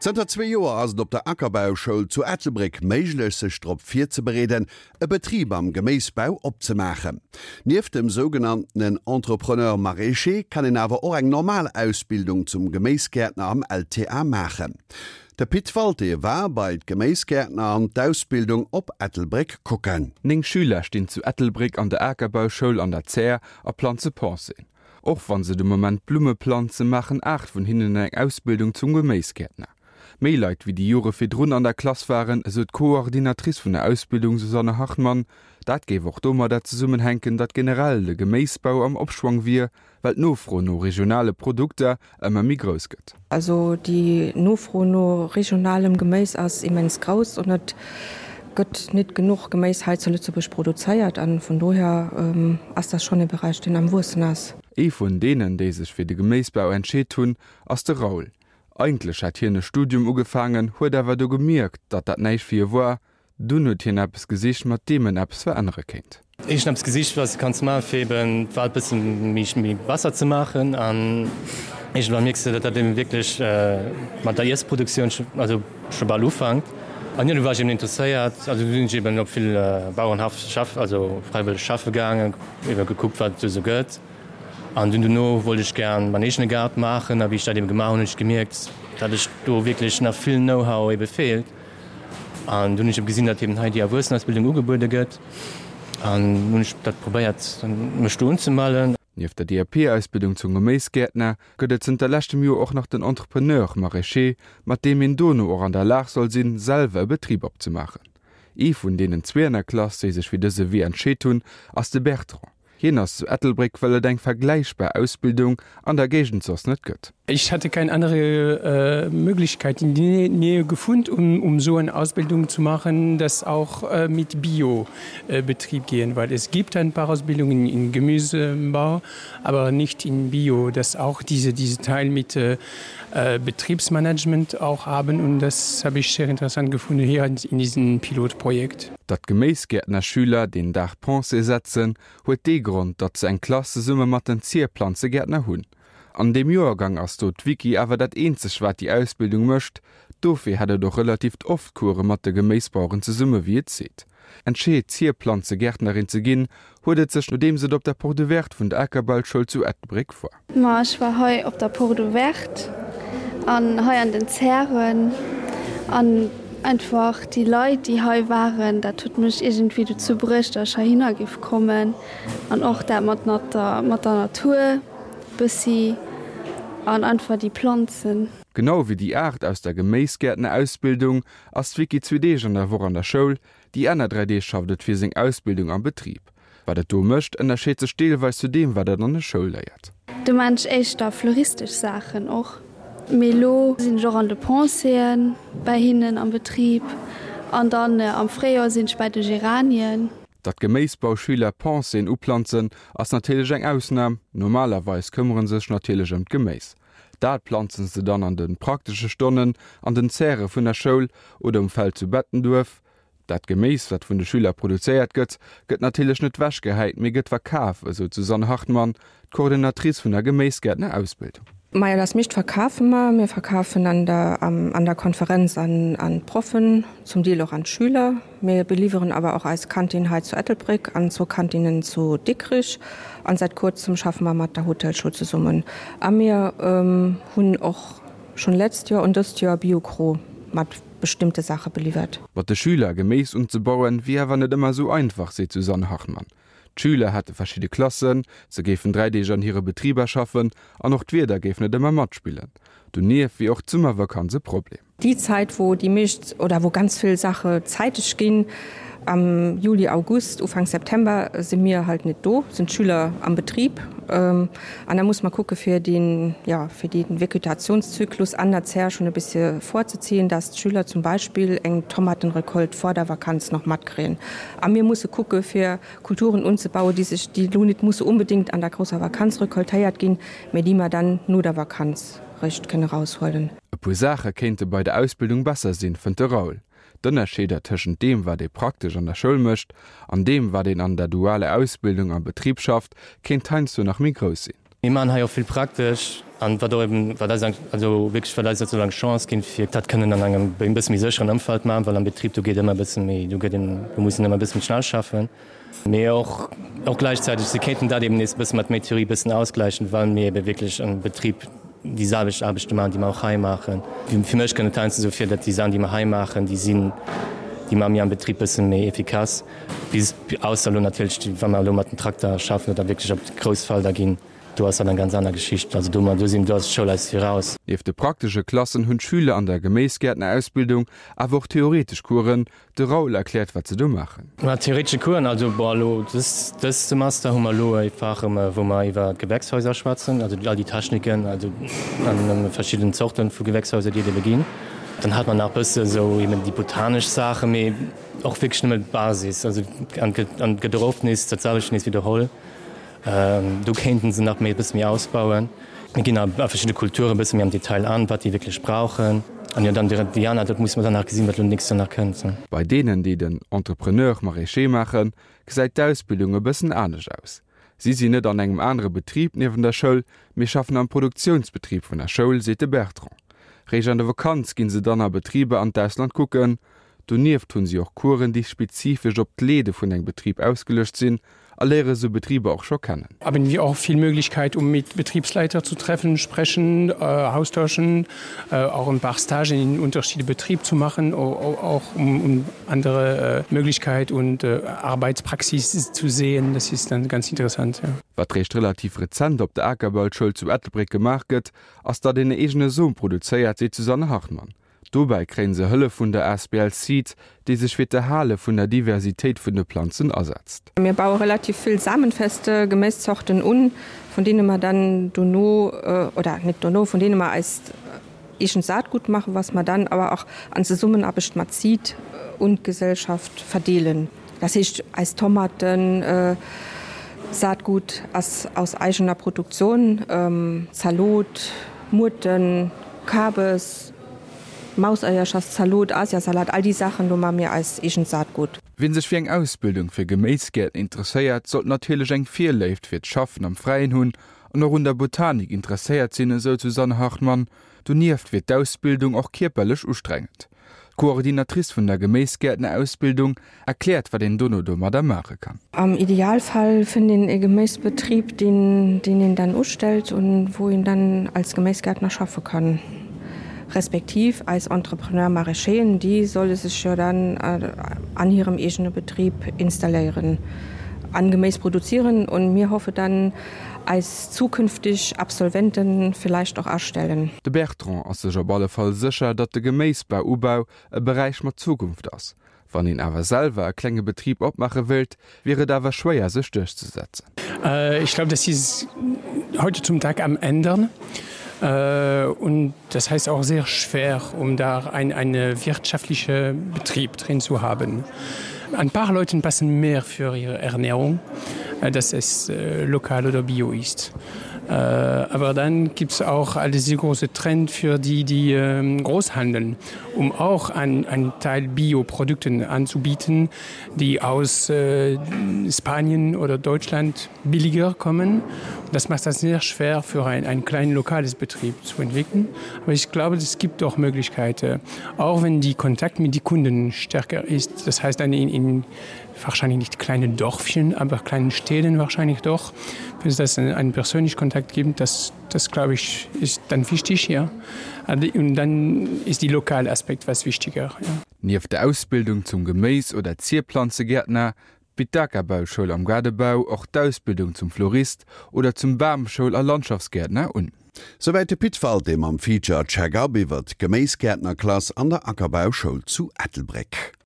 Zënter zwee Joer ass et op der Ackerbauschoul zu Ettelbréck méiglech, sech drop virzebereeden, e Betrib am Geméisbau opzemaachen. Nieft dem sougenanntenen Entrepreneur maraîcher kann een awer och eng normal Ausbildung zum Geméisgäertner am LTA maachen. De Pit Walté war bei d'Geméisgäertner an d'Ausbildung op Ettelbréck kucken. Néng Schüler stinn zu Ettelbréck an der Akerbauschoul an der Zär a planze Penséen. Och wann se de Moment Blumme planzen, maachen 8 vun hinnen eng Ausbildung zum Geméisgäertner. Méi Leit wéi déi Jore virdrun an der Klass waren, esou d'Coordinatrice vun der Ausbildung Susanne Hartmann. Dat géif och domadder zesummenhänken, datt generell de Geméisbau am Opschwong wier, well d'Nofro no regionale Produkter ëmmer méi grouss gëtt. Also déi Nofro no regionalem Geméis ass immens grouss an et gëtt nit genuch Geméis hei zu Lëtzebuerg produzéiert an vun dohier ass dat schonn e Beräich deen am wuessen ass. Ee vun deenen, déi sech fir de Geméisbau entscheet hunn, ass de Raoul. Eigentlech hätt hien e Studium ugefaangen, huet awer du gemierkt, datt dat näischt fir hie war Dunn huet hien eppes gesicht, mat deem en eppes verännere kéint. Ech hunn eppes gesicht, wat s de kanns maachen, fir eben d'Welt bësse méi besser ze maachen. An iergendwann mierks de, datt dat eben wierklech mat der Iessproduktioun also scho bal ufankt. An jo, du war ech eben interesséiert. Also du sinn ech eben op vill Bauerenhaff schaff, also fräiwëlleg schaffe gaangen, ebe gekuckt, wat et do esou gëtt. An dunn dono wollt ech gär mäin eegene Gaart maachen. A wéi ech dat eben gemaach hunn, hunn ech gemierkt, datt ech do wierklech nach vill Know-how ebe feelt. An dunn hunn ech eben gesinn, datt eben hei déi Erwuessenausbildung ugebuede gëtt an hunn ech dat probéiert, mech do unzemellen. Nieft der DAP-Ausbildung zum Geméisgäertner gëtt et zënter leschtem Joer och nach den Entrepreneur maraîcher, mat deem een dono och an der Lag soll sinn, selwer e Betrib opzemaachen. Ee vun deenen zwee an der Klass, déi sech fir dëse Wee entscheet hunn, ass de Bertrand. Hien ass zu Ettelbréck, well et eng vergläichbar Ausbildung an der Géigend soss net gëtt. Ich hatte kein andere Möglichkeit in die Nähe gefund, um um so eine Ausbildung zu machen, das auch mit Bio Betrieb gehen, weil es gibt ein paar Ausbildungen in Gemüsebau, aber nicht in Bio, das auch diese diese Teil mit Betriebsmanagement auch haben und das habe ich sehr interessant gefunden hier in diesem Pilotprojekt. Datt d'Geméisgäertnerschüler deen Dag Pensée setzen, huet dee Grond, datt se eng Klass zesumme mat den Zierplanzegäertner hunn. An deem Joergang ass do d'Vicky awer dat eenzeg wat déi Ausbildung mécht, dofir hätt et och relativt oft Course mat de Geméisbaueren zesumme wéi et seet. Entscheet Zierplanzegärtnerin ze ginn, huet et sech nodeems et op der Porte Ouverte vun der Akerbauschoul zu Ettelbréck war. Ma ech war hei op der Porte Ouverte an hei an den Zären an einfach déi Leit déi hei waren, dat huet mech iergendwéi dozou bruecht, datt ech heihinner giff kommen an och dat mat der mat der Natur bëssi an einfach déi Planzen. Genau wéi déi 8 aus der Geméisgäertnerausbildung ass d'Vicky zwee Deeg an der Woch an der Schoul, Déi aner 3 Deeg schafft et fir seng Ausbildung am Betrib. Wat et do mécht, ënnerscheet sech deelweis zu deem, wat et an der Schoul léiert. Do maan ech éischter fleuristesch Saachen och, mee lo sinn ech och an de Penséen bäi hinnen am Betrib an dann am Fréijoer sinn ech bäi de Geranien. Datt Geméisbauschüler Penséen uplanzen, ass natierlech eng Ausnam, normalerweis këmmere sech natierlech ëm d'Geméis. Dat planzen se dann an de praktesche Stonnen an den Zäre vun der Schoul oder um Feld zu Bettenduerf. Dat Geméis, wat vun de Schüler produzéiert gëtt, gëtt natierlech net wechgehäit, mee gëtt verkaf, esou d'Susanne Hartmann, d'Coordinatrice vun der Geméisgäertner-Ausbildung. Majo, das meescht verkafe mer. Mir verkafen an der an der Konferenz an an d'Proffen, zum Deel och an d'Schüler. Mir beliwweren awer och eis Kantin hei zu Ettelbréck an zwou Kantinen zu Dikrich. An säit kuerzem schaffe mer mat der Hotelschoul zesummen. A mir hunn och schonn letzt Joer und dëst Joer Biokro mat bestimmte Saache beliwwert. Mat de Schüler Geméis unzebauen, wier awer net ëmmer esou einfach, seet d'Susanne Hartmann. D'Schüler hätte verschidde Klassen, se géifen 3 Deeg an hire Betriber schaffen an och d'Wieder géif net ëmmer matspillen. Donieft wier och d'Summervakanz e Problem. Déi Zäit, wou déi meescht oder wou ganz vill Saache zäiteg ginn, am Juli, August, Ufank September, si mir halt net do, sinn d'Schüler am Betrib. An da muss mer kucke fir deen, jo, fir dee Vegetationszyklus an der Zär schonn e bisse vorzeziehen, dass d'Schüler zum Beispill eng Tomatenrecolte vor der Vakanz nach matkréien. A mir musse kucke fir Kulturen unzebauen, déi sech, déi elo net musse unbedéngt an der grousser Vakanz recoltéiert ginn, mä déi mer dann no der Vakanz réischt kënne raushuelen. E puer Saache kéinte bei der Ausbildung besser sinn, fënnt de Raoul. D'Ënnerscheeder tëschent deem, wat ee praktesch an der Schoul mécht, an deem, wat een an der dualer Ausbildung am Betrib schafft, kéint heiansdo nach méi grouss sinn. Mir maachen hei och vill praktesch an wat och eben, wat eis also wierklech wat eis sozusagen eng Chance ginn, fir dat kënnen an engem e bësse méi sécheren Ëmfeld maachen, well am Betrib do geet ëmmer e bësse méi, do gëtt een, do muss een ëmmer e bësse méi schnell schaffen. Mee och, och gläichzäiteg, se kéinten dat eben nees e bësse mat méi Theorie e bëssen ausgläichen, well mir ebe wierklech am Betrib déi selwecht Aarbechte maachen, déi mer och hei maachen. Fir mech kënnt et heiansdo esou vir, datt déi Saachen, déi mer hei maachen, déi sinn, déi maache mir am Betrib e bësse méi efficace. Bis, ausser elo natierlech, wa mer elo mat dem Trakter schaffen oder wierklech op grouss Felder ginn, do ass dat eng ganz aner Geschicht. Also do, do sinn, do ass d'Schoul eis viraus. Nieft de praktesche Klassen hunn d'Schüler an der Geméisgäertnerausbildung awer och theoretesch Coursen. De Raoul erkläert, wat se do maachen. Ma theoretesche Coursen, also bon, elo dës, dëst Semester hu mer elo e Fach, wou mer iwwer Gewächshäuser schwätzen, also all déi Techniken, also an verschidden Zorte vu Gewächshäuser, déi et ebe ginn. Dann hat mer nach e bësse sou eben déi botanesch Saachen, mee Och wierklech nëmme d'Basis, also an et gëtt och oft nees dat selwecht nees widderholl. Do kéinten se nach méi e bësse méi ausbauen. Mir ginn a verschidde Kulture e bësse méi am Detail an, wat déi wierklech brauchen. An jo, dann déi aner, dat musse mer dann nach gesinn, wat elo nächst Joer nach kënnt. Bei deenen, déi den Entrepreneur maraîcher maachen, gesäit d'Ausbildung e bëssen anescht aus. Si sinn net an engem anere Betrib niewen der Schoul, mee schaffen am Produktiounsbetrib vun der Schoul, seet de Bertrand. Réischt an der Vakanz ginn se dann a Betriber an d'Ausland kucken. Donieft hunn si och Coursen, déi spezifesch op d'Leede vun engem Betrib ausgeluecht sinn a léiere sou Betriber och scho kennen. Haben wir auch viel Möglichkeit, um mit Betriebsleiter zu treffen, sprechen, austauschen, auch ein paar Stagen in unterschiede Betrieb zu machen, auch um, um andere Möglichkeit und Arbeitspraxis zu sehen. Das ist dann ganz interessant, ja. Wat réischt relativ rezent op der Akerbauschoul zu Ettelbréck gemaach gëtt, ass datt een e eegene Som produzéiert, seet d'Susanne Hartmann. Dobäi kréien se Hëllef vun der asbl Seed, déi sech fir d'Erhale vun der Diversitéit vun de Planzen asetzt. Mir baue relativ vill samenfeste Geméiszorten un, vun deene mer dann dono, oder net dono, vun deene mer eist eegent Saatgut maachen, was mer dann awer och an Zesummenaarbecht mat Seed un d'Gesellschaft verdeelen. Das heescht, eis Tomaten, Saatgut ass aus eigener Produktion, Zalot, Muerten, Kabes, Mauseierchers, Zalot, Asiasalat, all déi Saachen, do maache mir eist eegent Saatgut. Wien sech fir eng Ausbildung fir Geméisgäertner interesséiert, sollt natierlech eng Virléift fir d'Schaffen am Fräien hunn an och un der Botanik interesséiert sinn, esou d'Susanne Hartmann. Donieft wier d'Ausbildung och kierperlech ustrengend. D'Coordinatrice vun der Geméisgäertnerausbildung erkläert, wat een dono domadder maache kann. Am Idealfall fënnt een e Geméisbetrib, deen deen een dann ustellt und wou een dann als Geméisgäertner schaffe kann. Respektiv eis Entrepreneur maraîcheren, déi solle sech jo dann an hirem eegene Betrib installéieren an Geméis produzieren und mir hoffe dann, eis zukünftig Absolventen vielleicht och astellen. De Bertrand ass sech op alle Fall sécher, datt de Geméisbau-Ubau e Beräich mat Zukunft ass. Wann een awer selwer e klenge Betrib opmaache wéilt, wier et awer schwéier sech duerchzesetzen. Ich glaube, das ist heute zum Tag am ändern und das heißt auch sehr schwer, um da ein eine wirtschaftliche Betrieb drin zu haben. Ein paar Leuten passen mehr für ihre Ernährung, dass es lokal oder bio ist. Aber dann gibt es auch all diese große Trend für die, die Großhandeln, um auch ein, ein Teil Bioprodukten anzubieten, die aus Spanien oder Deutschland billiger kommen. Das macht das sehr schwer für ein, ein kleinen lokales Betrieb zu entwickeln. Aber ich glaube, es gibt auch Möglichkeiten, auch wenn die Kontakt mit die Kunden stärker ist. Das heißt dann in, in wahrscheinlich nicht kleine Dörfchen, aber kleinen Städten wahrscheinlich doch, wenn es das einen persönlichen Kontakt gibt, das, das glaube ich, ist dann wichtig ja. Und dann ist die lokale Aspekt was wichtiger. Ja. Nieft der Ausbildung zum Geméis oder Zierplanzegäertner bitt d'Akerbauschoul am Gaardebau och d'Ausbildung zum Florist oder zum Bamschoul a Landschaftsgäertner un. Souwäit de Pit Walté mam Feature Check-up iwwer d'Geméisgäertnerklass an der Ackerbauschoul zu Ettelbréck.